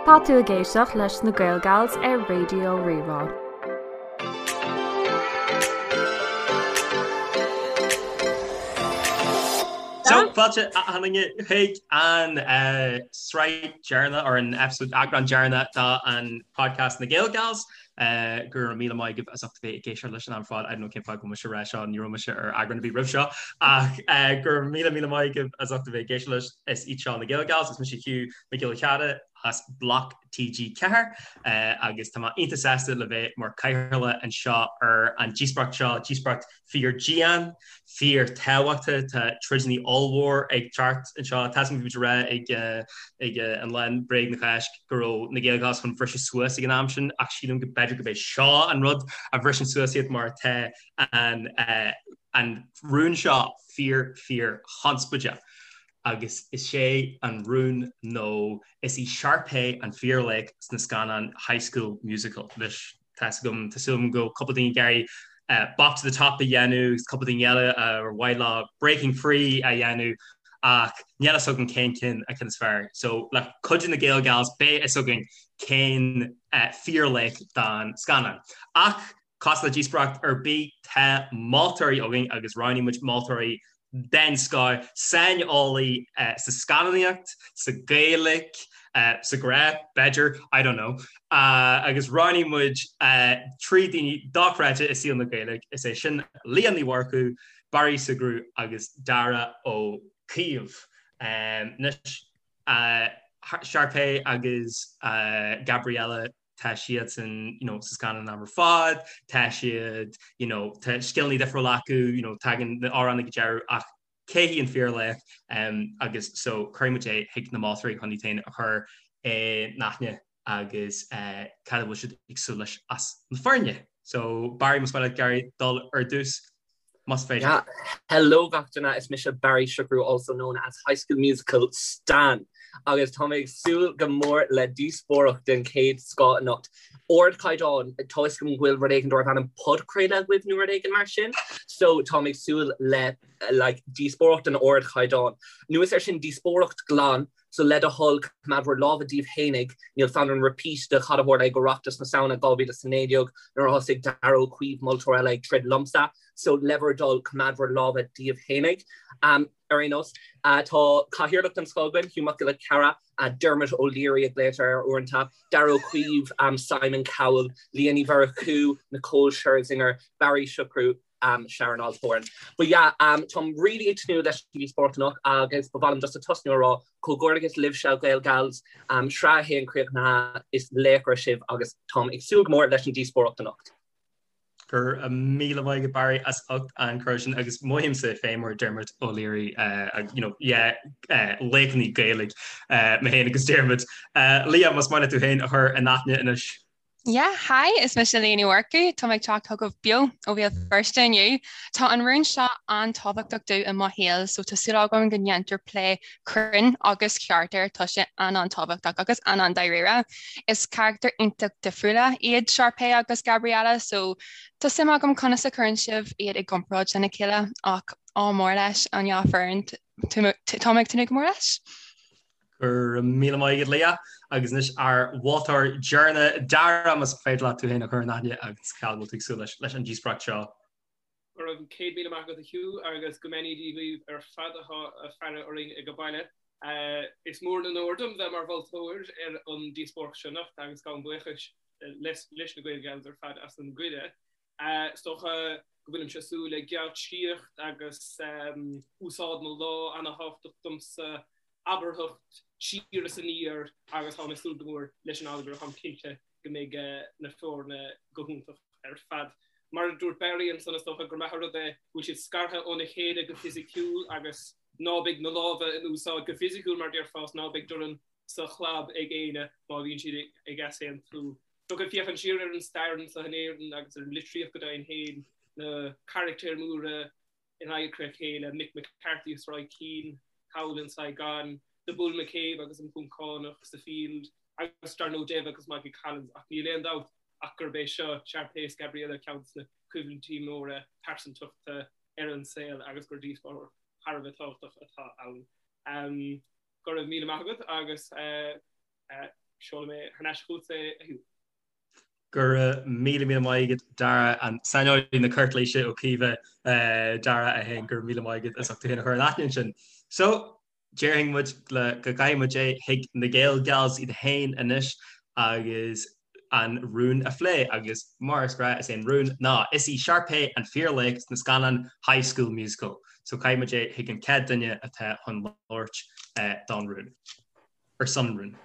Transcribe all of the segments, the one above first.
Tá tú ag éisteacht leis na Gaelgals ar Raidió Rí-Rá. So, fáilte achan duine chuig an sraith deireanach or an episode eagrán deireanach den podcast na Gaelgals. Go raibh míle maith agaibh as ucht a bheith ag éisteacht leis an am ar fad. I don't know cén fáth go bhfuil mise ag rá seo, ní raibh mise ar eagrán ar bith roimh seo ach go raibh míle míle maith agaibh as ucht a bheith ag éisteacht leis. Is iad seo na Gaelgals, is mise Hugh Mac Giolla Chearra as Bloc TG4 agus tá mé iontach sásta le bheith mar cathaoirleach anseo ar an díospóireacht seo, díospóireacht fíor dian, fíor tábhachtach, tá troideanna ollmhór ag teacht anseo. Tá a fhios agam bhí muid ag rá ag ag an lá Bréag na Cásc go raibh na Gaelgals chun bhriseadh suas ag an am sin ach sílim go b'fhéidir gurb é seo an rud a bhriseann suas iad mar tá an an rún seo fíor fíor chonspóideach agus is é an rún nó is í Sharpay an fíorlaoch sna scannáin High School Musical. Anois tá 'fhios agam, tá súil agam go bhfuil cúpla daoine ag iarraidh Bop to the Top a dhéanamh agus cúpla daoine eile ar mhaith leo Breaking Free a dhéanamh ach níl fhios agam cén cinn an ceann is fearr. So le cuidiú na Gaelgals beidh fhios againn cén fíorlaoch don scannán. Ach Cosúil le díospóireacht ar bith, tá moltóirí againn agus roghnaigh muid moltóirí den scoth, saineolaí sa scannánaíocht, sa Ghaeilge, sa ghrá, b'fhéidir, I don't know, agus roghnaigh muid 3 daoine dochreidte i saol na Gaeilge, is é sin Liadh Ní Mhurchú, Barry Sugrue agus Darragh Ó Caoimh. Anois, Sharpay agus Gabriella, tá siadsan you know sa scannán an am ar fad, tá siad you know tá scileanna difriúla acu, you know tagann na amhráin ag an deireadh ach cé hí an fíorlaoch um, agus so cuirfidh muid é chuig na moltóirí chun iad féin a chur in aithne agus uh, cad a bhfuil siad ag súil leis as na foirne. So Barry más maith leat Gary dul ar dtús. Más féidir. Yeah. Hello gach duine, is mise Barry Sugrue, also known as High School Musical Stan, agus tá mé ag súil go mór le díospóireacht den chéad scoth anocht. Ardchaighdeán, tá fhios agam go bhfuil rud éigin darb ainm podchraoladh agaibh nó rud éigin mar sin, so tá mé ag súil le like díospóireacht den ardchaighdeán. Anuas air sin díospóireacht glan, So le do thoil, coimeád bhur lámha díbh fhéinig, níl fonn orm repeat de cad a tharla ag Oireachtas na Samhna 2019 nuair a thosaigh Darragh Ó Caoimh, moltóir eile, ag troid liomsa. So le bhur dtoil, coimeád bhur lámha díbh fhéinig. Ar aon nós, tá cathaoirleach den scoth againn, Hugh Mac Giolla Chearra, Dermot O'Leary a ghlaotar air uaireanta, Darragh Ó Caoimh, Simon Cowell, Liadh Ní Mhurchú, Nicole Scherzinger, Barry Sugrue, Sharon Osbourne. But yeah, táim really ag tnúth leis an díospóireacht anocht agus ba mhaith liom just a tosnú a rá comhghairdeachas libhse Gaelgals, sraith 1 críochnaithe, is laochra sibh agus táim ag súil go mór leis an díospóireacht anocht. Go raibh míle maith agat Barry as ucht an cuireadh sin agus mothaímse féin mar Dermot O'Leary you know yeah laochraí Gaeilge mé féin agus Dermot. Liadh, más maith leat tú féin a chur in aithne anois. Yeah, hi, is mise Liadh Ní Mhurchú, tá mé ag teacht chugaibh beo ó Bhéal Feirste inniu. Tá an rún seo an-tábhachtach domh i mo shaol, so tá súil agam go ndéantar plé cruinn agus ceart air, tá sé an-an-tábhachtach agus an-an-dáiríre. Is carachtair iontach difriúla iad Sharpay agus Gabriella, so tá suim agam conas a chuireann sibh iad i gcomparáid lena chéile, ach ádh mór leis an dhá foireann, tá mé ag tnúth go mór leis. Go raibh míle maith agat Liadh agus anois ár mholtóir deireanach Darragh más féidir leat tú féin a chur in aithne agus cad a bhfuil tú ag súil leis leis an díospóireacht seo. Go raibh 100,000 maith agat a Hugh agus go mbeannaí Dia dhaoibh ar fad atá ag faire orainn ag baile. Is mór an onóir dom bheith mar mholtóir ar an díospóireacht seo anocht agus gabhaim buíochas leis na Gaelgals ar fad as an gcuireadh. Is dócha go bhfuilimse ag súil le geáitsíocht agus úsáid na lámh ana-thábhachtach domsa, abarthacht siar is aniar agus táim ag súil go mór leis an allagar, táim cinnte go mbeidh na foirne go hiontach ar fad. Mar a dúirt Barry ansan is dócha gur maith an rud é go bhfuil siad scartha óna chéile go fisiciúil agus ná beidh na lámha in úsáid go fisiciúil mar déarfá is ná beidh dorn sa chlab ag éinne má bhíonn siad ag easaontú. Dócha féachaint siar ar an stair anseo in Éirinn agus ar an litríocht go deimhin féin, na carachtair mhóra in adharca a chéile, Mick McCarthy is Roy Keane thall in Saigon, The Bull McCabe agus an Poncánach sa Field, agus dar ndóigh Dave agus Michael Collins, ach níl aon dabht ach gurb é seo Sharpay is Gabriella ceann de na coimhlintí móra pearsantachta ar an saol agus gur díospóireacht thar a bheith tábhachtach atá ann. Go raibh míle maith agat agus. Seolfaidh mé thar n-ais chugatsa é, a Hugh. Go raibh míle míle maith agat Dara, an saineolaí na cúirtléise Ó Caoimhe Dara é féin, go raibh míle maith agat as ucht tú féin a chur in aithne ansin. So, déarfainn muid le go gcaithfidh muid é chuig na Gael Gals iad féin anois agus an rún a phlé agus mar is gnáth is é an rún ná is í Sharpay an fíorlaoch sna scannáin High School Musical. So caithfidh muid é chuig an chéad duine atá chun labhairt don rún. Ar son an rúin.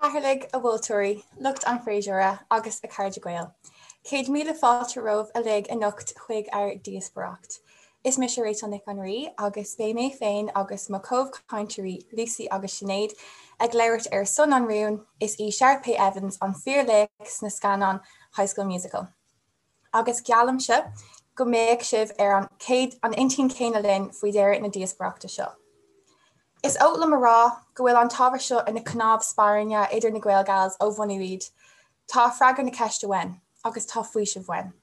A Chathaoirligh, a mholtóirí, lucht an fhreasúra agus a chairde Gael. 100,000 fáilte romhaibh uilig anocht chuig ár díospóireacht. Is mise Rachel Nic an Rí agus beidh mé féin agus mo chomhchainteoirí Lucy agus Sinéad ag labhairt ar son an rúin, is í Sharpay Evans an fíorlaoch sna scannáin High School Musical. Agus geallaimse go mbeidh sibh ar an chéad an intinn chéanna linn faoi dheireadh na díospóireachta seo. Is oth liom a rá go bhfuil an t-ábhar seo ina chnámh spairne idir na Gael Gals ó bhunú iad. Tá freagra na ceiste uainn, agus tá faoiseamh uainn.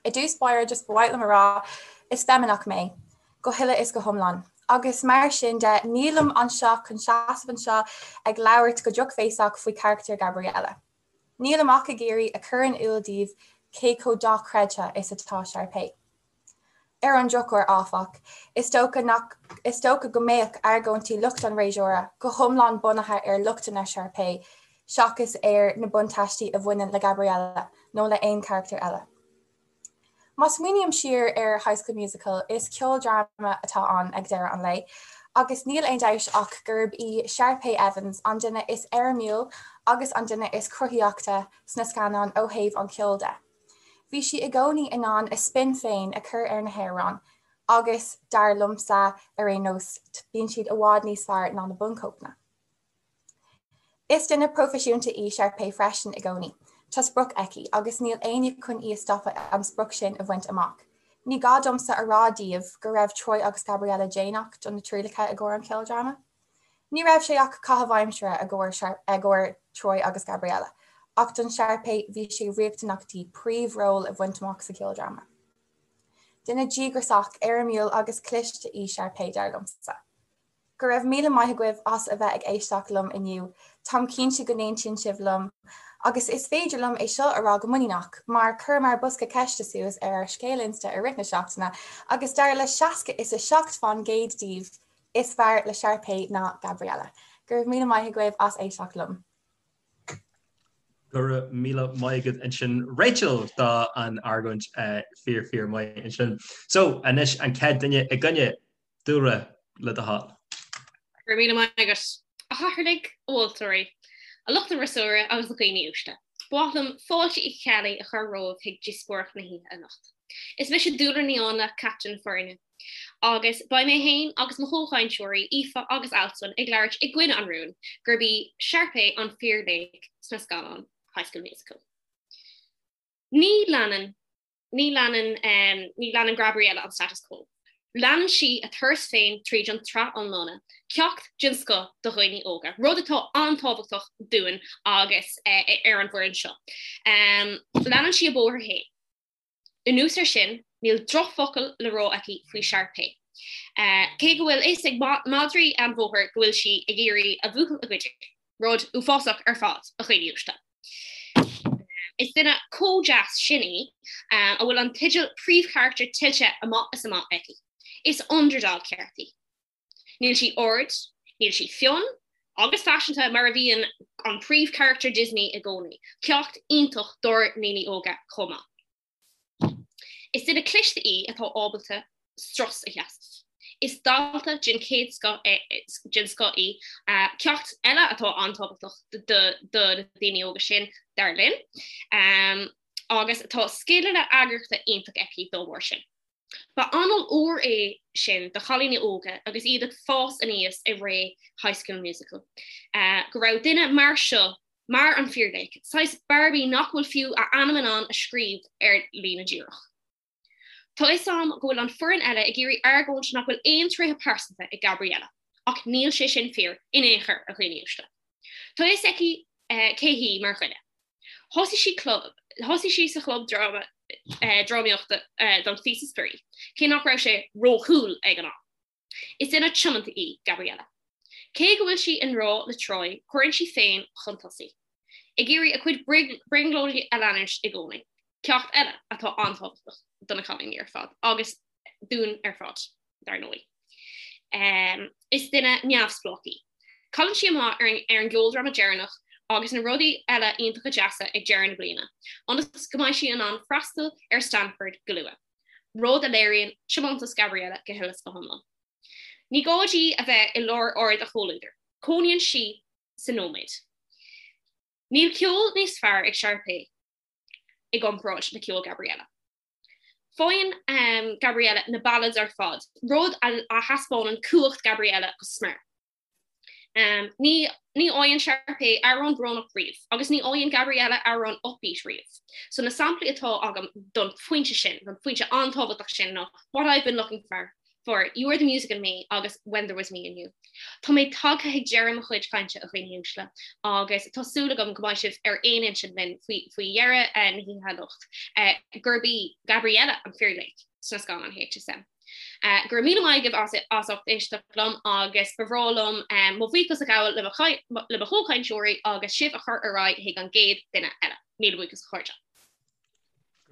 I dtús báire just ba mhaith liom a rá, is feimineach mé, go huile is go hiomlán, agus mar sin de nílim anseo chun seasamh anseo ag labhairt go drochbhéasach faoi charachtar Gabriella. Nílim ach ag iarraidh a chur in iúl daoibh cé chomh dochreidte is atá Sharpay. Ar an drochuair, áfach, is dócha nach is dócha go mbeadh argóintí lucht an fhreasúra go hiomlán bunaithe ar lochtanna Sharpay seachas ar na buntáistí a bhaineann le Gabriella nó le haon charachtar eile. Má smaoiním siar ar High School Musical, is ceoldráma atá ann ag deireadh an lae, agus níl aon dabht ach gurb í Sharpay Evans an duine is éirimiúil agus an duine is cruthaíochta sna scannáin ó thaobh an cheoil de. Bhí sí i gcónaí in ann a spin féin a chur ar na hamhráin agus, dar liomsa ar aon nós, bíonn siad i bhfad níos fearr ná na bunchóipeanna. Is duine proifisiúnta í Sharpay freisin i gcónaí. Tá sprioc aici agus níl éinne chun í a stopadh an sprioc sin a bhaint amach. Ní gá domsa a rá daoibh go raibh Troy agus Gabriella déanach do na trialacha i gcomhair an cheoldráma. Ní raibh sé ach caitheamh aimsire i gcomhair Troy agus Gabriella, ach don Sharpay bhí sé riachtanach di príomhról a bhaint amach sa cheoldráma. Duine díograiseach, éirimiúil agus cliste í Sharpay, dar liomsa. Go raibh míle maith agaibh as a bheith ag éisteacht liom inniu, táim cinnte go n-aontaíonn sibh liom, agus is féidir liom é seo a rá go muiníneach, mar chuireamar bosca ceiste suas ar ár scéal Insta i rith na seachtaine agus dar le 60 is 7 fán gcéad díobh, Is fearr le Sharpay ná Gabriella. Go raibh míle maith agaibh as éisteacht liom. Go raibh míle maith agat ansin Rachel do an argóint fíor fíor maith ansin. So anois an chéad duine i gcoinne, Dúlra le do thoil. Go raibh míle maith agat. A chathaoirligh, a mholtóirí, a lucht an fhreasúra agus a dhaoine uaisle. Ba mhaith liom fáilte Uí Cheallaigh a chur romhaibh chuig díospóireacht na hoíche anocht. Is mise Dúlra Ní Áinle, captaen na foirne. Agus beidh mé féin agus mo chomhchainteoirí Aoife agus Alswyn ag labhairt i gcoinne an rúin gurb í Sharpay an fíorlaoch sna scannáin High School Musical. Ní leanann ní leanann ní leanann Gabriella an status quo. Leanann sí a turas féin tríd an tsraith iomlána, ceacht den scoth do dhaoine óga, rud atá an-tábhachtach dúinn agus ar an bhfoireann seo. Leanann sí a bóthar féin. Anuas air sin, níl drochfhocal le rá aici faoi Sharpay. Cé go bhfuil fhios ag madraí an bhóthair go bhfuil sí ag iarraidh a bhuachaill a ghoid, rud uafásach ar fad, a dhaoine uaisle. Is duine chomh deas sin í, a bhfuil an teideal príomhcharachtar tuillte amach is amach aici. Is underdog ceart í. Níl sí ard, níl sí fionn agus faiseanta mar a bhíonn an príomhcharachtar Disney i gcónaí. Ceacht iontach dár ndaoine óga chomh maith. Is duine cliste í atá ábalta strus a sheasamh. Is dalta den chéad scoth den scoth í, ceacht eile atá an-tábhachtach do na daoine óga sin, dar linn, agus tá scileanna eagraíochta iontach aici dá bharr sin. Ba anáil úr é sin do chailíní óga agus iad ag fás aníos i ré High School Musical, go raibh duine mar seo mar an fíorlaoch, saghas Barbie nach bhfuil fiú a ainm in ann a scríobh ar líne díreach. Tá fhios a'm go bhfuil an foireann eile ag iarraidh argóint nach bhfuil aon tréithe pearsanta ag Gabriella, ach níl sé sin fíor in aon chor, a dhaoine uaisle. Tá fhios aici cé hí mar dhuine. Thosaigh sí club, thosaigh sí sa chlub dráma, drámaíochta don phíosa spraoi, cé nach raibh sé ró-cool ag an am. Is duine tiomanta í Gabriella. Cé go bhfuil sí i ngrá le Troy, cuireann sí féin chun tosaigh, ag iarraidh a cuid brionglóidí a leanúint i gcónaí, ceacht eile atá an-tábhachtach do na cailíní ar fad, agus dúinn ar fad, dar ndóigh. Is duine neamhspleách í. Cailleann sí amach ar an gceoldráma deireanach agus na rudaí eile iontacha deasa ag deireadh na bliana, ionas go mbeidh sí in ann freastal ar Stanford go luath, rud a léiríonn tiomantas Gabriella go huile is go hiomlán. Ní gá di a bheith i lár aird a chomhluadair, cónaíonn sí sa nóiméad. Níl ceol níos fearr ag Sharpay i gcomparáid le ceol Gabriella. Faigheann Gabriella na ballads ar fad, rud a thaispeánann cumhacht Gabriella go smior. Ní ní fhaigheann Sharpay amhrán brónach riamh, agus ní fhaigheann Gabriella amhrán upbeat riamh. So na samplaí atá agam don phointe sin, don phointe an-tábhachtach sin ná What I've Been Looking For, for You Are the Music in Me agus When There Was Me and You. Tá mé tagtha ag deireadh mo chuid cainte a dhaoine uaisle agus tá súil agam go mbeidh sibh ar aon intinn linn faoi faoi dheireadh na hoíche anocht gurb í Gabriella an fíorlaoch sna scannáin HSM. Go raibh míle maith agaibh as as ucht éisteacht liom agus ba bhreá liom mo bhuíochas a ghabháil le mo le mo chomhchainteoirí agus sibh a chur ar aghaidh chuig an gcéad duine eile. Míle buíochas a chairde.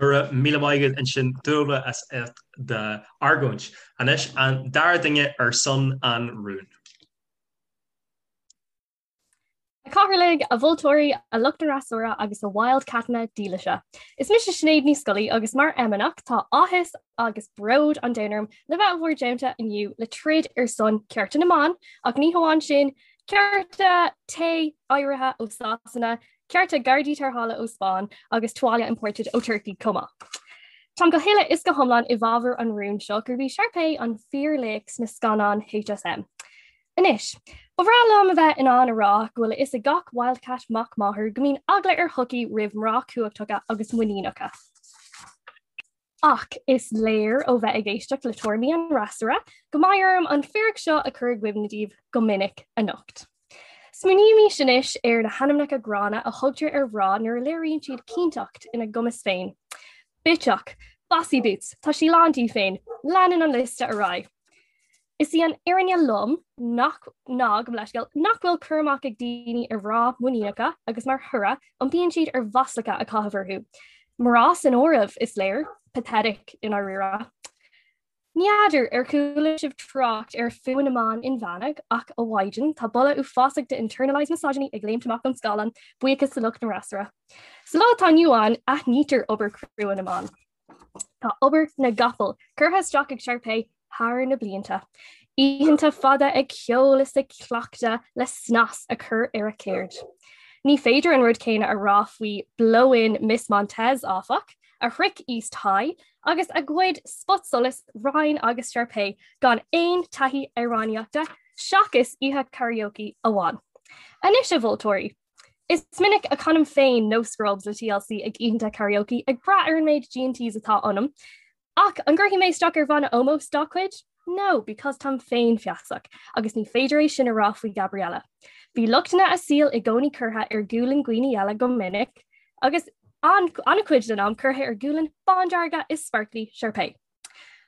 Go raibh míle maith agat ansin Dúlra as ucht d'argóint. Anois an dara duine ar son an rúin. A Chathaoirligh, a mholtóirí, a lucht an fhreasúra agus a wildcatanna dílise. Is mise Sinéad Ní Scolaí agus mar fheimineach tá áthas agus bród an domhain orm le bheith i bhur dteannta inniu le troid ar son cearta na mban ach ní hamháin sin, cearta tae áirithe ó Sasana, cearta gardaí tarrthála ó Spáinn agus tuáille imported ó Turkey chomh maith. Táim go huile is go hiomlán i bhfabhar an rúin seo gurb í Sharpay an fíorlaoch sna scannáin HSM. Anois, ba bhreá liom a bheith in ann a rá go bhfuil a fhios ag gach wildcat mac máthar go mbíonn eagla ar shochaí roimh mná cumhachtacha agus muiníneacha. Ach is léir ó bheith ag éisteacht le tuairimí an fhreasúra go mbeidh orm an fíric seo a chur i gcuimhne daoibh go minic anocht. Smaoinímis anois ar na hainmneacha gránna a thugtar ar mhná nuair a léiríonn siad cinnteacht ina gcumas féin. Bitseach, Bossy Boots, tá sí lán di féin, leanann an liosta ar aghaidh. Is í an fhírinne lom nach ná gabh mo leithscéal nach bhfuil cur amach ag daoine ar mhná muiníneacha agus mar thoradh iompaíonn siad ar mhaslacha a chaitheamh orthu. Mná san áireamh, is léir. Pathetic i ndáiríre. Ní fheadar ar chuala sibh trácht ar fuath na mban inmheánach ach a mhaighdean, tá boladh uafásach de internalized misogyny ag léimt amach ón scáileán, buíochas do lucht an fhreasúra. Sa lá atá inniu ann, aithnítear obair chrua na mban. Tá obair na gcapall curtha isteach ag Sharpay thar na blianta. Oícheanta fada ag ceol is ag cleachtadh le snas a chur ar a ceird. Ní féidir an rud céanna a rá faoi blow-in Miss Montez, áfach, a shroich East High agus a ghoid spotsolas Ryan agus Sharpay gan aon taithí amhránaíochta seachas oíche karaoke amháin. Anois a mholtóirí, Is minic a chanaim féin No Scrubs le TLC ag oícheanta karaoke ag brath ar an méid G&Ts atá ionam. Ach an gcuirfidh mé isteach ar bhanna ómóis dá cuid? No, because táim féinfheasach, agus ní féidir é sin a rá faoi Gabriella. Bhí lochtanna a saoil i gcónaí curtha ar ghualainn dhaoine eile go minic, agus an-chuid den am curtha ar ghualainn bándearga is sparkly Sharpay.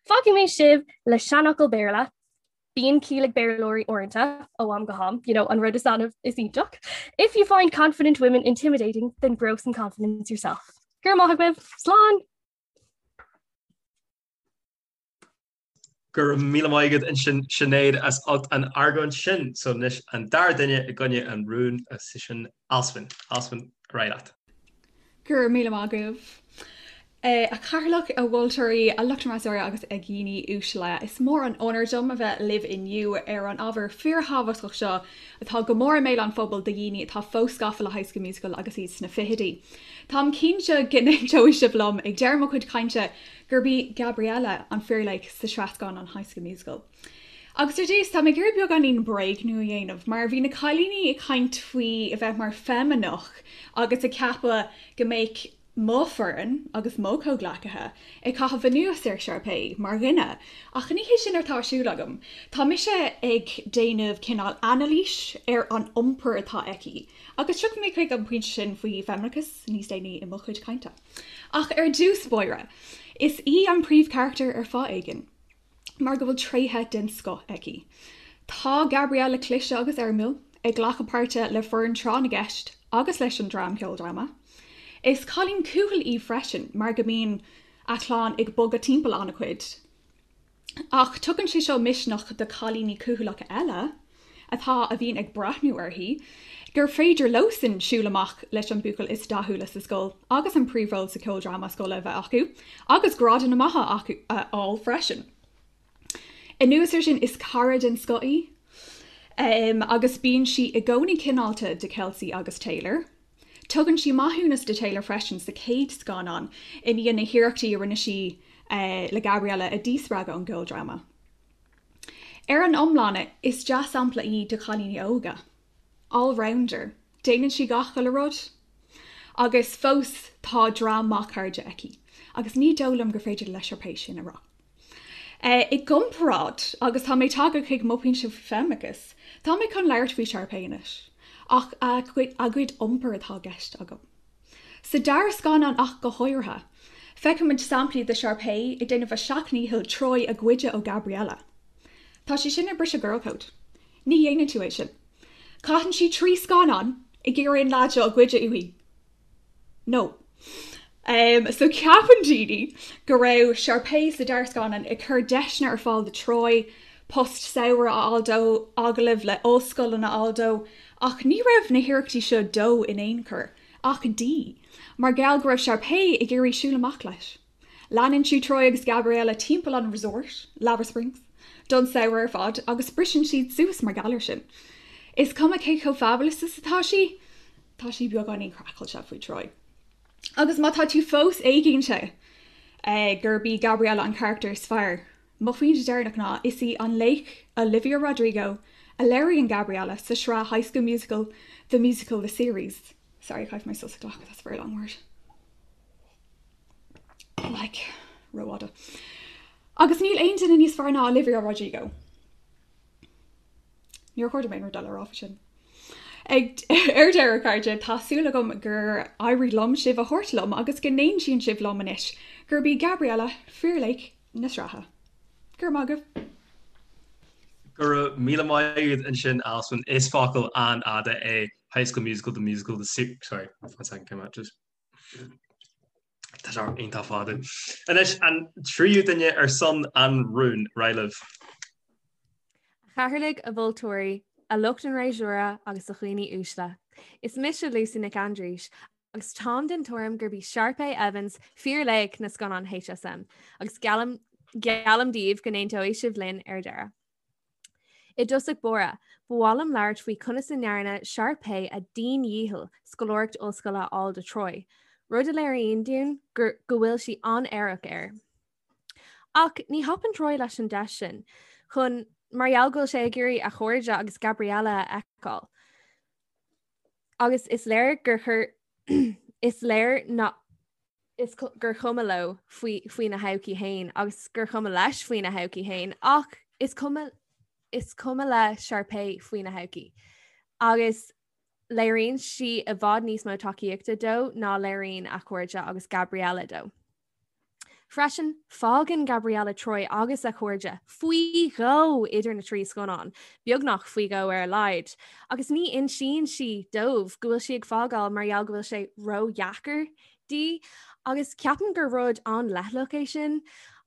Fágfaidh mé sibh le seanfhocal Béarla, Bíonn ciall ag Béarlóirí uaireanta, ó am go ham, you know, an rud is annamh is iontach. If you find confident women intimidating, then grow some confidence yourself. Go raibh maith agaibh, slán! Go raibh míle maith agat ansin Sinéad as ucht an argóint sin. So anois an dara duine i gcoinne an rúin is sin Alswyn. Alswyn, ar aghaidh leat. Go raibh míle maith agaibh. A Chathaoirleach, a mholtóirí, a lucht an fhreasúra agus a dhaoine uaisle. Is mór an onóir dom a bheith libh inniu ar an ábhar fíorthábhachtach seo atá go mór i mbéal an phobail do dhaoine atá fós gafa le High School Musical agus iad sna fichidí. Táim cinnte go n-aontóidh sibh liom ag deireadh mo chuid cainte gurb í Gabriella an fíorlaoch sa sraith scannán High School Musical. Agus ar dtús, tá mé ag iarraidh beagáinín bréagnú a dhéanamh, mar bhí na cailíní ag caint faoi a bheith mar feimineach agus ag ceapadh go mbeadh mo foireann agus mo chomhghleacaithe ag caitheamh anuas ar Sharpay mar dhuine, ach ní hé sin atá ar siúl agam. Tá mise ag déanamh cineál anailís ar an iompar atá aici, agus tiocfaidh mé chuig an bpointe sin faoi feimineachas níos déanaí i mo chuid cainte. Ach ar dtús báire, is í an príomhcharachtar ar fáth éigin. mar go bhfuil tréithe den scoth aici. Tá Gabriella cliste agus éirimiúil, ag glacadh páirte le foireann tráth na gceist agus leis an dream ceoldráma. Is cailín cúthail í freisin mar go mbíonn a clann ag bogadh timpeall an-chuid. Ach tugann sé seo misneach do chailíní cúthaileacha eile atá a bhíonn ag breathnú uirthi gur féidir leosan siúl amach leis an buachaill is dathúla sa scoil agus an príomhról sa cheoldráma scoile a bheith acu agus grádanna maithe acu a fháil freisin. Anuas ar sin is cara den scoth í agus bíonn sí i gcónaí cineálta do Kelsey agus Taylor. Tugann sí maithiúnas do Taylor freisin sa chéad scannán i ndiaidh na hiarrachtaí a rinne sí le Gabriella a dhíspreagadh ón gceoldráma. Ar an iomlán, is dea-sampla í do chailíní óga. All-rounder. Déanann sí gach uile rud. Agus fós tá dream maith cairde aici. Agus ní dóigh liom gur féidir le Sharpay sin a rá. I gcomparáid, agus tá mé tagtha chuig mo phointe feimineachais, tá mé chun labhairt faoi Sharpay anois, ach a cuid iompair atá i gceist agam. Sa dara scannán ach go háirithe, feicimid samplaí de Sharpay ag déanamh a seacht ndícheall Troy a ghoideadh ó Gabriella. Tá sé sin ag briseadh girl code. Ní dhéanann tú é sin. Caitheann sí 3 scannán ag iarraidh an leaid seo a ghoideadh uaithi. No. Um, so ceapann daoine go raibh Sharpay sa dara scannán ag cur deiseanna ar fáil do Troy, post samhraidh a fháil dó, agallaimh le ollscoileanna a fháil dó, ach ní raibh na hiarrachtaí seo dó in aon chor, ach di, mar gheall go raibh Sharpay ag iarraidh siúl amach leis. Leanann sí Troy agus Gabriella timpeall an resort, Lava Springs, don samhradh ar fad agus briseann siad suas mar gheall air sin. Is cuma cé chomh fabulous is atá sí, tá sí beagáinín craiceáilte faoi Troy. Agus má tá tú fós éiginnte gurb í Gabriella an carachtar is fearr, mo phointe deireanach ná is í an laoch Olivia Rodrigo a léiríonn Gabriella sa sraith High School Musical, The Musical, The Series. Sorry, caithfidh mé sos a ghlacadh, that's a very long word. Like, rófhada. Agus níl aon duine níos fearr ná Olivia Rodrigo. Níor chóir dom aon rud eile a rá faoi sin. Ag ar deireadh cairde, tá súil agam gur éirigh liom sibh a thabhairt liom agus go n-aontaíonn sibh liom anois gurb í Gabriella fíorlaoch na sraithe. Go raibh maith agaibh. Go raibh míle maith agat ansin Alison. Is focal an-fhada é High School Musical, The Musical, The Sorry, one second, came out just Tá sé iontach fada. Anois an tríú duine ar son an rúin, ar aghaidh libh. A chathaoirligh, a mholtóirí, a lucht an fhreasúra agus a dhaoine uaisle. Is mise Lucy Nic Aindrís agus táim den tuairim gurb í Sharpay Evans fíorlaoch na scannán HSM agus geallaim geallaim daoibh go n-aontóidh sibh linn ar deireadh. I dtosach báire, ba mhaith liom labhairt faoi conas a ndearna Sharpay a dian-dhícheall scoláireacht ollscoile a fháil do Troy, rud a léiríonn dúinn gur go bhfuil sí an-aireach air. Ach ní thapann Troy leis an deis sin, chun mar gheall go bhfuil sé ag iarraidh a chairde agus Gabriella a fheiceáil. Agus is léir gur chuir is léir ná is gur chuma leo faoi faoina thodhchaí féin agus gur chuma leis faoina thodhchaí féin ach is cuma is cuma le Sharpay faoina thodhchaí. Agus léiríonn sí i bhfad níos mó tacaíochta dó ná léiríonn a chairde agus Gabriella dó. Freisin, fágann Gabriella Troy agus a chairde faoi dhó idir na trí scannán, beagnach faoi dhó ar a laghad, agus ní insíonn sí dóibh go bhfuil sí ag fágáil mar gheall go bhfuil sé ródheacair di, agus ceapaim gur rud an-leithleach é sin,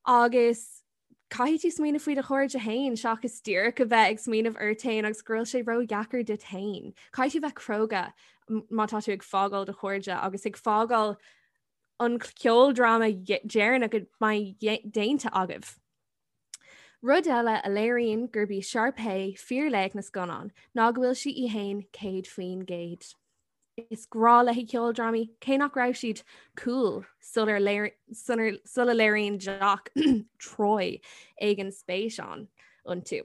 agus caithfidh tú smaoineamh faoi do chairde féin seachas díreach a bheith ag smaoineamh ort féin agus go bhfuil sé ródheacair duit féin. Caithfidh tú bheith cróga má tá tú ag fágáil do chairde agus ag fágáil an ceoldráma deireanach a mbeidh déanta agaibh. Rud eile a léiríonn gurb í Sharpay fíorlaoch na scannán ná go bhfuil sí í fhéin 100%. Is grá léi ceoldrámaí, cé nach raibh siad cool sula léiríonn jock Troy éigin spéis ann iontu.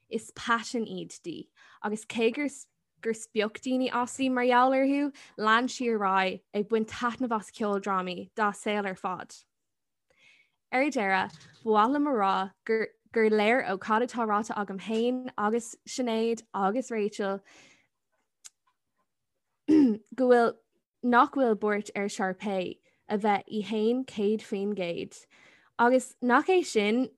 Is paisean iad di, agus cé gur gur spioc daoine aisti mar gheall orthu, lean sí ar aghaidh ag baint taitneamh as ceoldrámaí dá saol ar fad. Ar deireadh, ba mhaith liom a rá gur gur léir ó cad atá ráite agam féin agus Sinéad agus Rachel go bhfuil nach bhfuil buairt ar Sharpay a bheith í fhéin 100% agus nach é sin.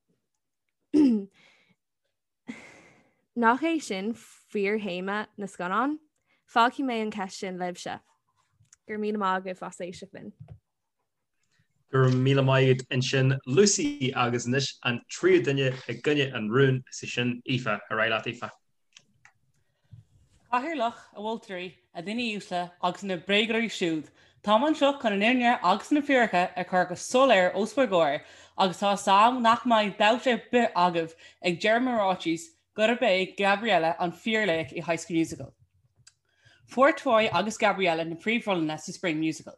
Nach é sin fíorthéama na scannán? Fágfaidh mé an cheist sin libhse. Go raibh míle maith agaibh as éisteacht linn. Go raibh míle maith agat ansin Lucy agus anois an tríú duine i gcoinne an rúin, is í sin Aoife. Ar aghaidh leat Aoife. A Chathaoirleach, a mholtóirí, a dhaoine uaisle agus na bréagóirí siúd, táim anseo chun an fhírinne agus na fíricí a chur go soiléir os bhur gcomhair agus tá 'fhios a'm nach mbeidh dabht ar bith agaibh ag deireadh mo ráitis gurb é Gabriella an fíorlaoch i High School Musical. Fuair Troy agus Gabriella na príomhrólanna sa Spring Musical.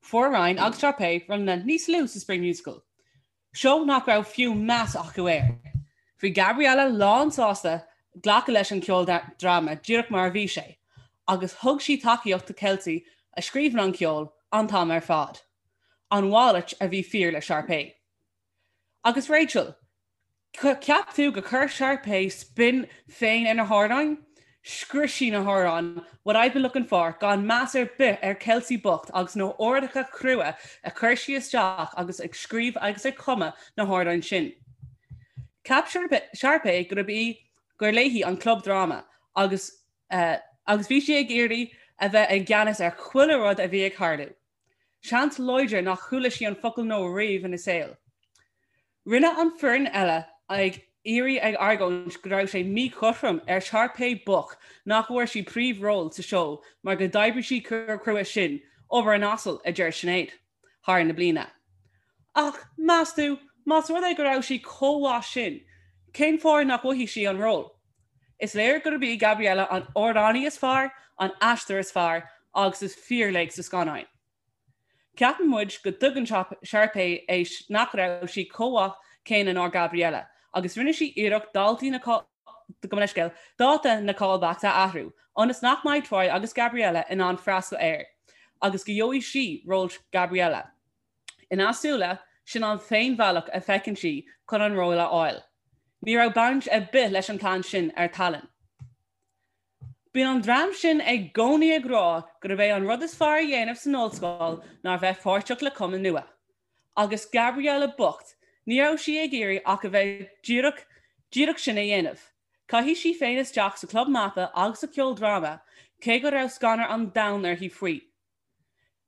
Fuair Ryan agus Sharpay rólanna níos lú sa Spring Musical, seó nach raibh fiú meas acu air. Bhí Gabriella lán sásta glacadh leis an ceoldráma díreach mar a bhí sé, agus thug sí tacaíocht do Kelsey a scríobhann an ceol an t-am ar fad. An mhalairt a bhí fíor le Sharpay. Agus Rachel, Ceap tú gur chuir Sharpay spin féin ar na hamhráin? Scrios sí na hamhráin What I've Been Looking For gan meas ar bith ar Kelsey bocht agus na huaireanta crua a chuir sí isteach agus ag scríobh agus ag cumadh na hamhráin sin. Cheap Sharpay gurb í gur léi an club dráma agus agus bhí sí ag iarraidh a bheith i gceannas ar chuile rud a bhí ag tarlú. Seans láidir nach chuala sí an focal no riamh ina saol. Rinne an foireann eile ag iarraidh ag argóint go raibh sé míchothrom ar Sharpay bocht nach bhfuair sí príomhról sa seó mar go d'oibrigh sí chomh crua sin, obair an asail, a deir Sinéad, thar na bliana. Ach, meas tú, más rud é go raibh sí chomh mhaith sin, cén fáth nach bhfaighidh sí an ról? Is léir gurb í Gabriella an amhránaí is fearr, an aisteoir is fearr agus is fíorlaoch sa scannáin. Ceapann muid go dtuigeann Sharpay é nach raibh sí chomh maith céanna ná Gabriella agus rinne sí iarracht daltaí na gabh mo leithscéal, dáta na callbacks a athrú ionas nach mbeidh Troy agus Gabriella in ann freastal air agus go gheobhaidh sí ról Gabriella. Ina súile, sin an t-aon bhealach a feiceann sí chun an ról a fháil. Ní raibh baint ar bith leis an plean sin ar tallann. Bíonn an dream sin i gcónaí ag rá gurb é an rud is fearr a dhéanamh san ollscoil ná bheith páirteach le cumann nua. Agus Gabriella bocht, ní raibh sí ag iarraidh ach a bheith díreach, díreach sin a dhéanamh. Chaith sí féin isteach sa chlub mata agus sa cheoldráma, cé go raibh scanradh an domhain uirthi faoi.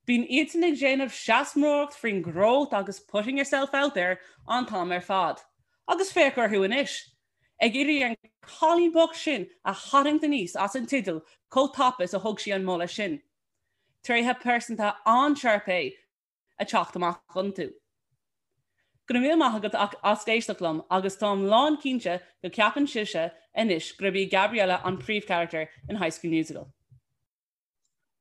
Bíonn iadsan ag déanamh seasmóireacht faoin growth agus putting yourself out there an t-am ar fad. Agus féach orthu anois! Ag iarraidh an cailín bocht sin a tharraingt aníos as an teideal chomh tapa is a thug sí an moladh sin. Tréithe pearsanta an-Sharpay ag teacht amach iontu. Go raibh míle maith agat as éisteacht liom agus táim lán cinnte go ceapann sibhse anois gurb í Gabriella an príomhcharachtar in High School Musical.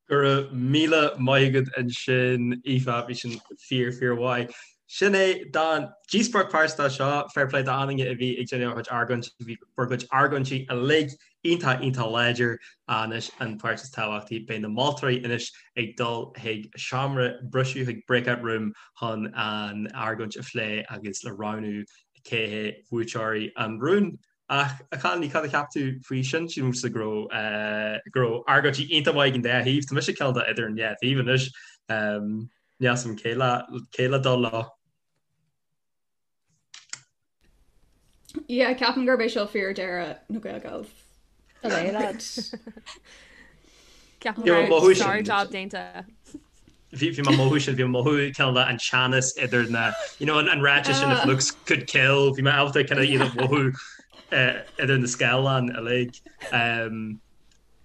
Go raibh míle maith agat ansin, Aoife, bhí sin fíor, fíor mhaith. Sin é don díospóireacht pearsanta seo, fair play d'achan duine a bhí ag déanamh a chuid argóintí, bhí bhur gcuid argóintí uilig iontach, iontach láidir. Anois an pháirt is tábhachtaí, beidh na moltóirí anois ag dul chuig seomra briseadh, chuig breakout room chun an argóint a phlé agus le roghnú cé hé buaiteoirí an rúin. Ach, a chailíní, cad a cheap tú faoi sin? Sílimse go raibh, go raibh argóintí iontach maith ag an dá thaobh. Tá mise cineál de idir an dhá thaobh anois. Níl 'fhios a'm cé le, cé le dul leo. Yeah, ceapaim gurb é seo fíor-deireadh na Gael Gals. Allez, lads. Ceapaim go raibh sár-job déanta. Bhí mé ag mothú sin, bhí mé ag mothú cineál de an teannas idir na, you know, an ráiteas sin if looks could kill, bhí mé ábalta kind of iad a mhothú idir na scáileáin uilig.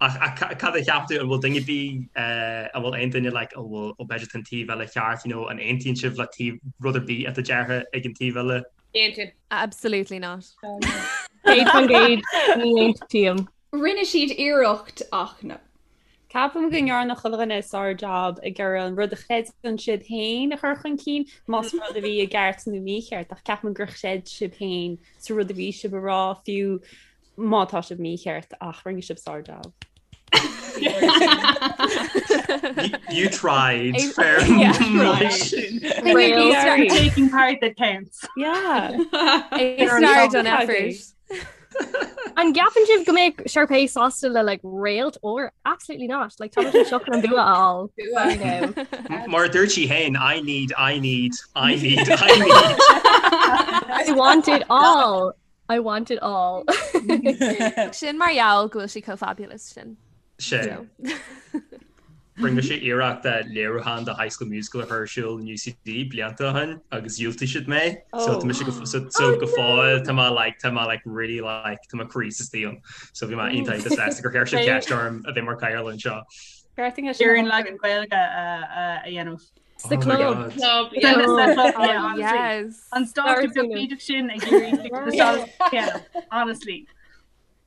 Ach cad a cheap tú, an bhfuil duine ar bith, an bhfuil aon duine like, an bhfuil, ó b'fhéidir tá an taobh eile ceart, you know, an aontaíonn sibh le taobh, rud ar bith atá deirthe ag an taobh eile? Aontaím. Absolutely not. 100% ní aontaím. Rinne siad iarracht ach no. Ceapaim go ndearna chuile dhuine sár-jab ag iarraidh an rud a chreideann siad féin a chur chun cinn, más rud a bhí i gceart nó mícheart, ach ceapaim gur chreid sibh féin sa rud a bhí sibh a rá, fiú má tá sibh mícheart, ach rinne sibh sár-jab. You tried. Fair Taking part that counts. Yeah. A star done effort. An gceapann sibh go mbeadh Sharpay sásta le like réalt óir? Absolutely not. Like tá sé seo chun an bua a fháil. I know. Mar a dúirt sí féin, I need, I need, I need, I need. I want it all. I want it all. Sin mar gheall go bhfuil sí chomh fabulous sin. Sin. Rinne mise iarracht léiriúchán de High School Musical a chur ar siúl in UCD blianta ó shin agus dhiúltaigh siad mé. So tá mise go so so go fóill tá mé like tá mé like really like tá mo chroí istigh ann. So bhí mé iontach iontach sásta gur chuir siad ceist orm a bheith mar chathaoirleach anseo. Ar an leagan Gaeilge a dhéanamh. Sa oh club. Club, yeah. Yes. An stáitse beag sin ag iarraidh honestly.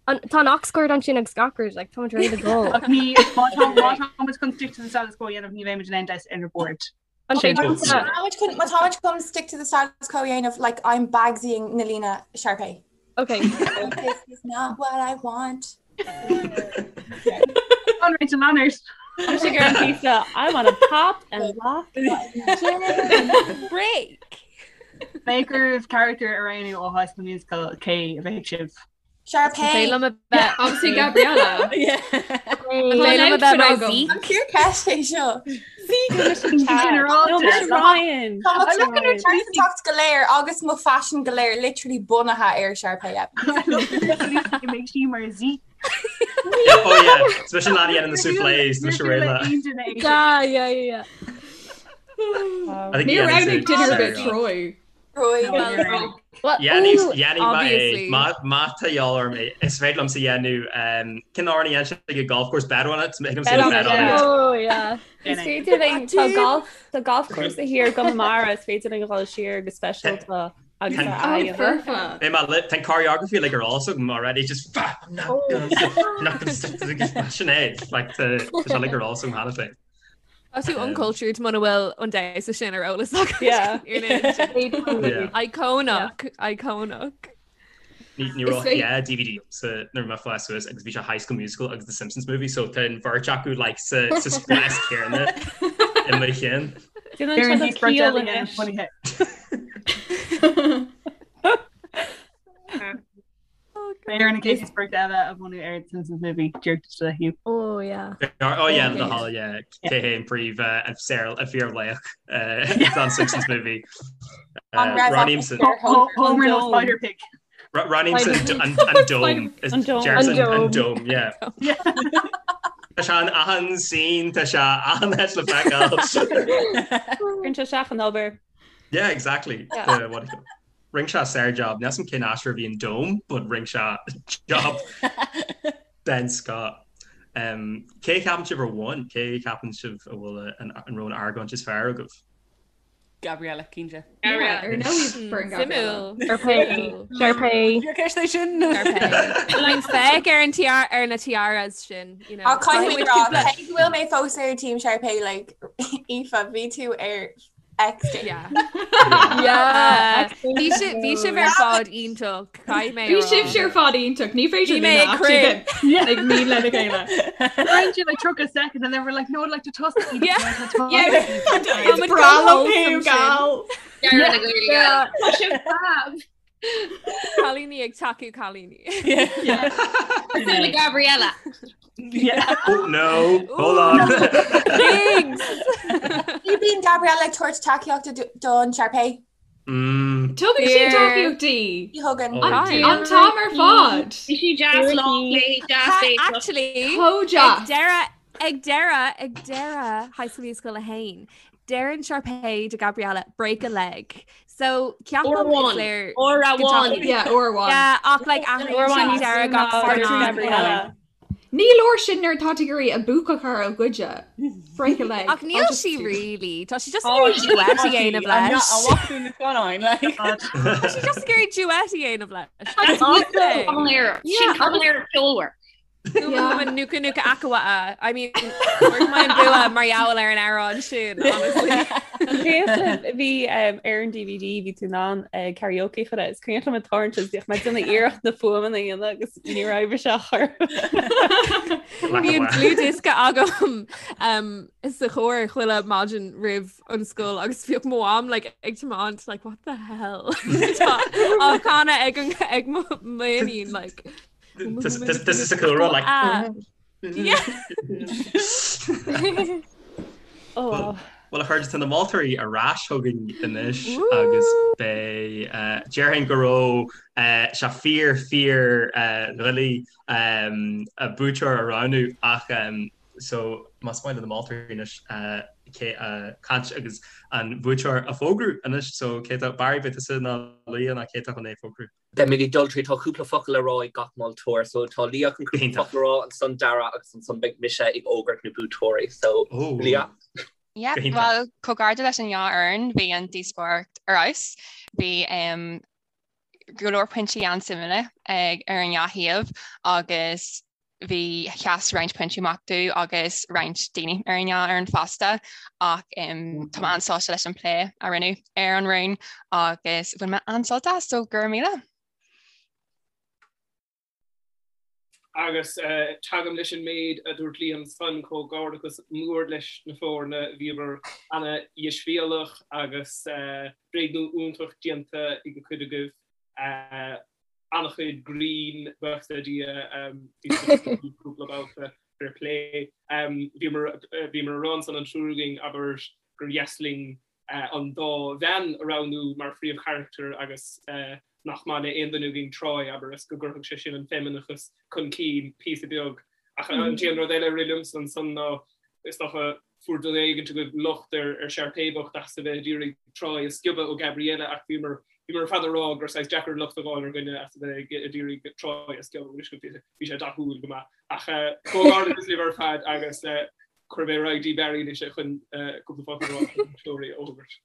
Tá an aux cord ansin agus gach rud, like, táimid réidh le dul. Ach ní má tá má táimid chun stick to the status quo a dhéanamh ní bheimid in aon deis ar an board. An Sin. Má táimid chun stick to the status quo a dhéanamh, like, I'm Bagsying na líne Sharpay. Okay. This is not what I want. An Rachel Leonard. Tá ar an píosa I want to pop and lock break. Bheadh oraibh character a roghnú ó High School Musical cé a bheadh sibh? Sharpay. Liom a bheith Obviously Gabriella. Liom a bheith mar Zeke. An fíorcheist é seo. Ryan. Pearsantacht go léir agus mo phaisean go léir literally bunaithe ar Sharpay Evans. Make sí mar Zeke. Oh yeah, Especially leaid a dhéanann na soufflés mise réidh le. Yeah, yeah, yeah. I think Níor dhéanann roghnaigh sé duine ar sár bith job. Troy. Troy. Well, Dhéanfaidh ooh, dhéanfaidh mé é obviously. má má tá de dhíobháil orm é is féidir liomsa dhéanamh um, cén amhrán a dhéanann sé ag an golf course bet on it thig liomsa Bet on bet it, on yeah. it. Oh, yeah. Is féidir linn tá golf tá golf course thiar i gConamara is féidir linn dhul siar go speisialta agus Tá- a Oh, aghaidh. foirfe. Beidh mé le tá an choreography like ar eolas agam already just "Fuck, I'm not gonna not gonna stick to the sin é like tá tá sé like ar eolas agam cheana féin. Tá tú uncultured muna bhfuil an damhsa sin ar eolas agat. Yeah. Yeah. Iconic, iconic. Ní ní Is raibh féidir- yeah, DVD sa nuair a bhí mé ag fás suas agus bhí sé High School Musical agus The Simpsons movie so tá an bheirt acu like sa sa spás céanna i mo chinn. Déanann Ar an sé díospóireacht ciall eile anois. bunaithe. Beidh ar an chéad díospóireacht eile a bhunú ar The Simpsons movie díreach le Hugh. Oh, yeah. Oh yeah, the hall yeah cé hé an príomh an saor an fíorlaoch don Simpsons movie. An raibh Roghnaímse Homer nó Dome. Spider Pig. Roghnaímse an an dome is An dome. Jefferson An an dome. dome yeah. Tá sé in achan scene tá sé achan áit le feiceáil. Cuireann sé isteach an obair. Yeah, exactly. Yeah. The, what do you call it? Rinne sé sár-job. Níl 'fhios a'm cén aisteoir a bhí an dome, but rinne sé job den scoth. Um, cé a cheapann sibh ar bhain? Cé a cheapann sibh a bhfuil an, an raibh an argóint is fearr agaibh? Gabriella cinnte. Yeah, ar ndóigh foireann Gabriella. Suimiúil. Sharpay. Sharpay. Fíorcheist é sin. Like féach ar an tiara ar na tiaras sin, you know. Ach caithfidh mé Caithfidh rá, muid cúpla- cé go bhfuil mé fós ar Team Sharpay, like, Aoife, bhí tú ar X day. Yeah. Yeah. Bhí si- bhí sibh ar fad iontach. Caithfidh mé Bhí a rá. sibh ar fad iontach, ní féidir Bhí mé linn ag actually bheith ag mín lena chéile. Weren't you like 30 seconds and then we're like no I'd like to toss it. Yeah. Yeah, Tá Is muid breá go liom wholesome thú, gal. Deireadh na Gaeilge. Tá sibh fab. Cailíní ag tacú cailíní. Cosúil le Gabriella. Yeah. Oh no, hold on. Thanks. Ní bíonn Gabriella ag tabhairt tacaíochta don Sharpay. Mm, Tugann sí Fear. tacaíocht Ní thugann. Oh. Hi. An t-am ar fad. Bhí sí deas lá léi, deas léi. Actually, Chomh ag deas. deireadh ag deireadh ag deireadh High School Musical 1, deireann Sharpay do Gabriella break a leg. So Uair ceapaim is amháin. léir Uair go amháin. dtacaíonn- Yeah, uair amháin. Yeah, ach like athraíonn Uair amháin sí níos deireadh mó gach ná scannán. Gabriella. Ní leor sin nuair atá tú ag iarraidh a buaca a chur ó ghoide. Break a leg. Ach níl I'll just sí do- really. Tá sí just Oh, ag iarraidh duet a dhéanamh leis. A bhfuil na scannáin, like. Tá sí just ag iarraidh duet a dhéanamh leis. That's That's Cavalera. Yeah, Sin Cavalera ceolmhar. Yeah. Nuka nuka akawa. I mean, fuair mé an bua mar gheall ar an amhrán sin, honestly. Cuimhin bhí ar an DVD bhí tú in ann karaoke chur is cuimhin liom an tarraingt is bhíodh mé ag déanamh iarracht na fuaimeanna a dhéanamh agus ní raibh sé chur. Bhí an dlúthdhiosca agam um, sa charr chuile maidin roimh an scoil agus bhíodh mo mham like, ag tiomáint like what the hell Tá á chanadh ag an ag mo m'iníon like This this is a cool run like. Ah. Yeah. Oh. Bhuel a chairde, tá na moltóirí ar ais chugainn anois agus beidh, déarfainn go raibh sé fíor fíor dhoiligh buaiteoir a roghnú ach so más maith le na moltóirí anois cé caint agus an buaiteoir a fógrú anois so cé tá Barry beidh tusa nó Leah nó cé tá chun é a fógrú? Beimid ag dul tríd, tá cúpla focal le rá ag gach moltóir, so tá Leah chun cúpla focal a rá, ansan Dara agus ansan beidh mise ag fhógairt na buaiteoirí, so Leah. Yeah, bhuel, comhghairdeas leis an dhá fhoireann, bhí an díospóireacht ar fheabhas, bhí go leor pointí an-suimiúla ag ar an dhá thaobh agus bhí sheas roinnt pointí amach domh agus roinnt daoine ar an dhá fhoireann fosta ach tá mé an-sásta leis an plé a rinneadh ar an rún agus bhain mé an-sult as, so go raibh míle. Agus tagaim leis an méid a dúirt Liam ansan, comhghairdeachas mór leis na foirne, bhíobhair ana-dheisbhéalach agus bréagnú iontach déanta ag cuid agaibh. an-chuid grinn, buíochas le Dia, bhí cúpla babhta fair play. Bhíomar bhíomar a rá ansan an triúr againn, abair, gur dheas linn an dá bhean a roghnú mar phríomhcharachtair agus nach maith le aon duine againn Troy, abair, is go gcuirfeadh sé sin an feimineachas chun cinn píosa beag. Ach an t-aon rud eile a rith liomsa ansan ná, is dócha, fuair duine éigint agaibh locht ar ar Sharpay bocht as a bheith ag iarraidh Troy a sciobadh ó Gabriella ach bhíomar bhíomar ar fad ag rá gur saghas deacair locht a fháil ar dhuine as a bheith ag iarraidh Troy a sciobadh anois bhí sé dathúil go maith. Ach comhghairdeachas libh ar fad agus cuirfidh mé ar aghaidh dtí Barry anois chun cúpla focal a rá na buaiteoirí a fhógairt.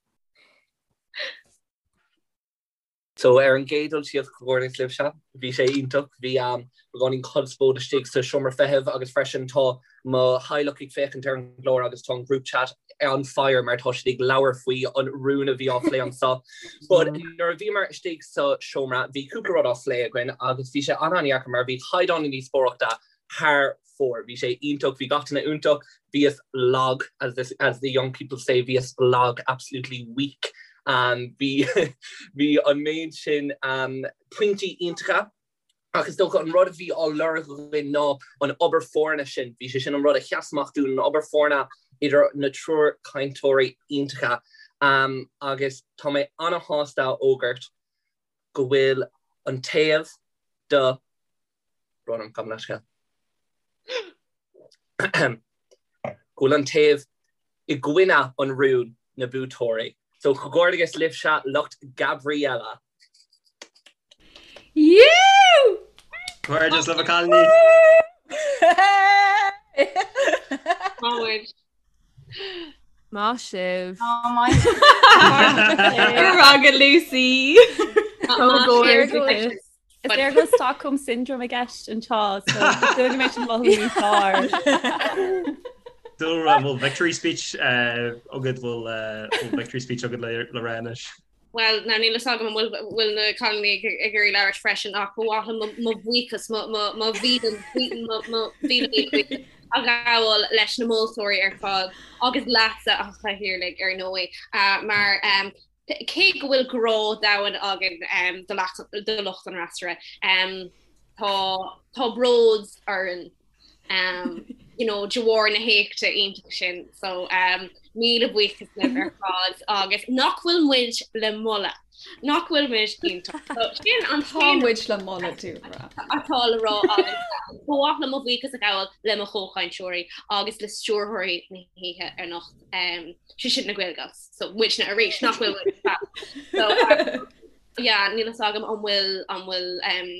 So ar an gcéad dul síos, comhghairdeas libhse, bhí sé iontach, bhí beagáinín conspóid istigh sa seomra feithimh agus freisin tá mo theaghlach ag féachaint ar an gclár agus tá an group chat on fire mar tá siad ag labhairt faoi an rún a bhí á phlé anseo. But nuair a bhíomar istigh sa seomra bhí cúpla rud á phlé againn agus bhí sé an-an-dheacair mar bhí caighdeán na díospóireachta thar fóir. Bhí sé iontach, bhí gach duine iontach, bhíos lag, as the, as the young people say, bhíos lag, absolutely weak. Um, bhí, bhí an méid sin um, pointí iontacha, ach is dócha an rud a bhí á lorg againn ná an obair foirne sin. Bhí sé sin an rud a sheas amach dúinn, an obair foirne idir na triúr cainteoirí iontacha. Um, agus tá mé ana-shásta a fhógairt go bhfuil an taobh do Brón orm, gabh mo leithscéal. Go bhfuil an taobh i gcoinne an rúin na buaiteoirí. So comhghairdeas libhse lucht Gabriella. Yú! Comhghairdeas libh a chailíní! Maith Maith sibh. Maith Go Lucy. Comhghairdeas. Is léir go bhfuil Stockholm Syndrome i gceist anseo, so is dóigh go mbeidh sin mothú níos fearr. Dúlra, bhfuil victory speech agat, bhfuil victory speech agat le rá anois? Bhuel, now níl fhios agam an bhfuil bhfuil na cailíní ag ag iarraidh labhairt freisin ach ba mhaith liom mo bhuíochas, mo mo mo mhíle mo mo mhíle míle buíochas a ghabháil leis na moltóirí ar fad agus leatsa a chathaoirligh ar ndóigh mar Cé go bhfuil grá domhain againn do lucht an fhreasúra, tá bród orainn you know, de bharr na héachta iontach sin. So míle buíochas libh ar fad agus nach bhfuil muid le moladh, nach bhfuil muid iontach. So sin an Tá muid le moladh dúlra. atá le rá agam. Ba mhaith liom mo bhuíochas a ghabháil le mo chomhchainteoirí agus le stiúrthóirí na hoíche anocht. sé sin na Gaelgals so muidne arís nach bhfuil muid fab. So um, yeah, níl fhios agam an bhfuil an bhfuil um,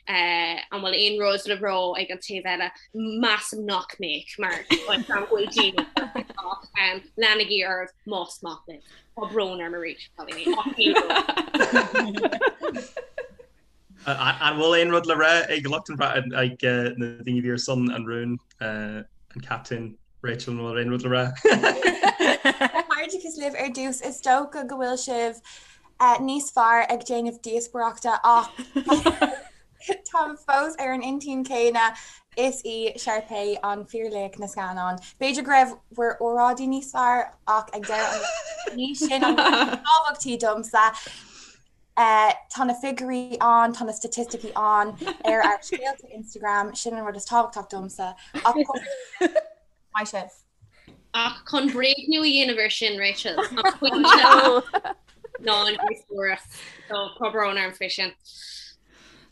uh, an bhfuil aon rud le rá ag an taobh eile measaim nach mbeadh mar an bhfuil daoine ach um, leanaigí oraibh más maith libh. Tá brón orm arís cailíní, ach níl brón. An bhfuil aon rud le rá ag lucht an ag na daoine a bhí ar son an rúin, an captaen Rachel, an bhfuil aon rud le rá? Comhghairdeachas libh ar dtús, is dócha go bhfuil sibh níos fearr ag déanamh díospóireachta ach táim fós ar an intinn céanna, is í Sharpay an fíorlaoch na scannán. B'fhéidir go raibh bhur óráidí níos fearr ach ag deireadh an lae ní sin an rud is tábhachtaí domsa. Tá na figiúirí ann, tá na staitisticí ann ar ár scéalta Instagram, sin an rud is tábhachtach domsa. Ach maith sibh. Ach chun bréagnú a dhéanamh ar sin, Rachel, an pointe ná an díospóireacht. So tá brón orm faoi sin.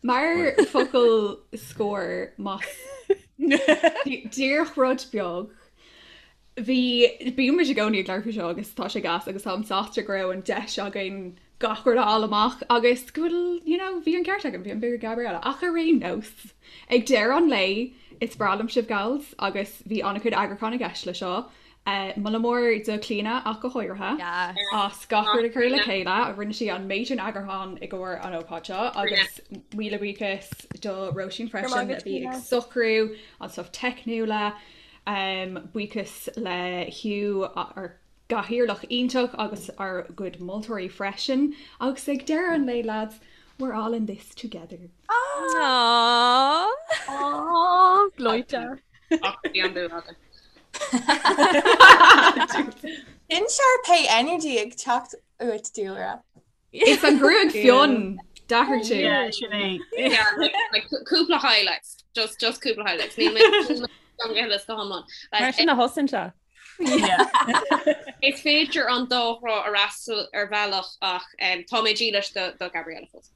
Mar focal scoir más díreach rud beag, bhí, bíonn muid i gcónaí ag labhairt faoi seo agus tá sé gas agus táim sásta go raibh an deis againn gach rud a fháil amach agus go bhfuil, you know, bhí an ceart againn, bhí an bua ag Gabriella. Ach ar aon nós, ag deireadh an lae, is breá liom sibh gals agus bhí an-chuid eagrúcháin i gceist le seo. Moladh mór do Clíona ach go háirithe as gach rud a chur le chéile. Rinne sí an méid sin eagrúcháin i gcomhair an ócáid seo agus míle buíochas do Róisín freisin a bhí ag socrú an stuff teicniúla. Buíochas le Hugh ár gcathaoirleach iontach agus ár gcuid moltóirí freisin. Agus ag deireadh an lae lads, we're all in this together. Aww. Aww, gleoite. Ach bhí an bua againn. Sin Sharpay energy ag teacht uait Dúlra. Is an gruaig fionn d'athraigh tú. Yeah, sin é. Yeah, like, like, cúpla highlights. Just, just cúpla highlights. Níl mé níl mé go hiomlán. Mar Like, sin a thosaíonn sé. Is féidir an dá thrá a fhreastal ar bhealach ach um, tá mé dílis do, do Gabriella fós.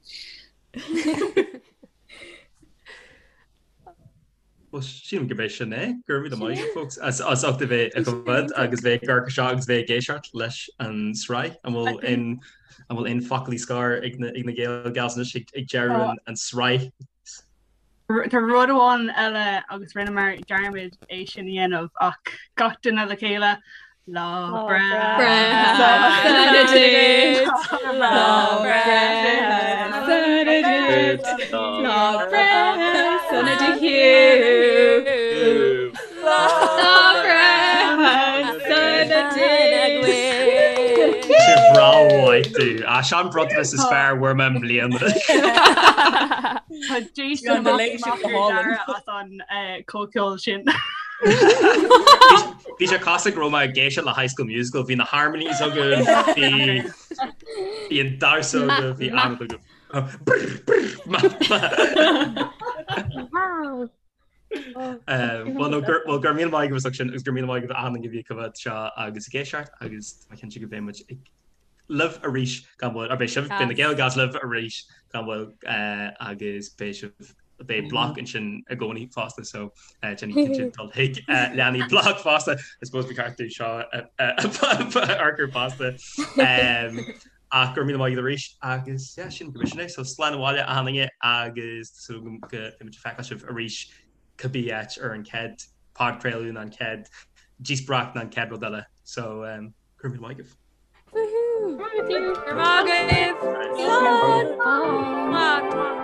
Well sílim gurb é sin é. Go raibh míle maith agat folks as as ucht a bheith ag coimhéad agus bheith ag amharc seo agus bheith ag éisteacht leis an sraith. An bhfuil aon an bhfuil aon foclaí scoir ag na ag na Gael Gals anois ag ag deireadh an an sraith? Tá rud amháin eile agus rinneamar dearmad é sin a dhéanamh ach gach duine le chéile Lá breithe sona duit Lá breithe sona duit Lá breithe sona do Hugh Lá breithe sona duit Sé breá mhaith tú. A sean bronntanas is fearr a fuair mé i mbliana. Tá Jason An delay sin go hálainn. as an comhcheol sin. Bhí sé cosúil go raibh mé ag éisteacht le High School Musical, bhí na harmonies agam, bhí bhí an damhsa agam, bhí an agam. Well no gur well go raibh míle maith agaibh as ucht sin agus go raibh míle maith agaibh achan duine a bhí ag coimhéad seo agus ag éisteacht agus tá mé cinnte go mbeidh muid ag libh arís gan mhoill, or beidh sibh, beidh na Gael Gals libh arís gan mhoill agus beidh sibh, beidh bloc ansin i gcónaí fosta so déanaigí cinnte dul chuig leanaí bloc fosta, I suppose ba cheart dúinn seo a fhorchur fosta. Ach go raibh míle maith agat arís agus yeah sin go sin é so slán abhaile achan duine agus tá súil agam go mbeidh muid ag feiceáil sibh arís cibé áit ar an chéad podchraoladh nó an chéad díospóireacht nó an chéad rud eile so Go raibh míle maith agaibh. Woohoo! Go raibh maith agaibh! Slán! Mwah!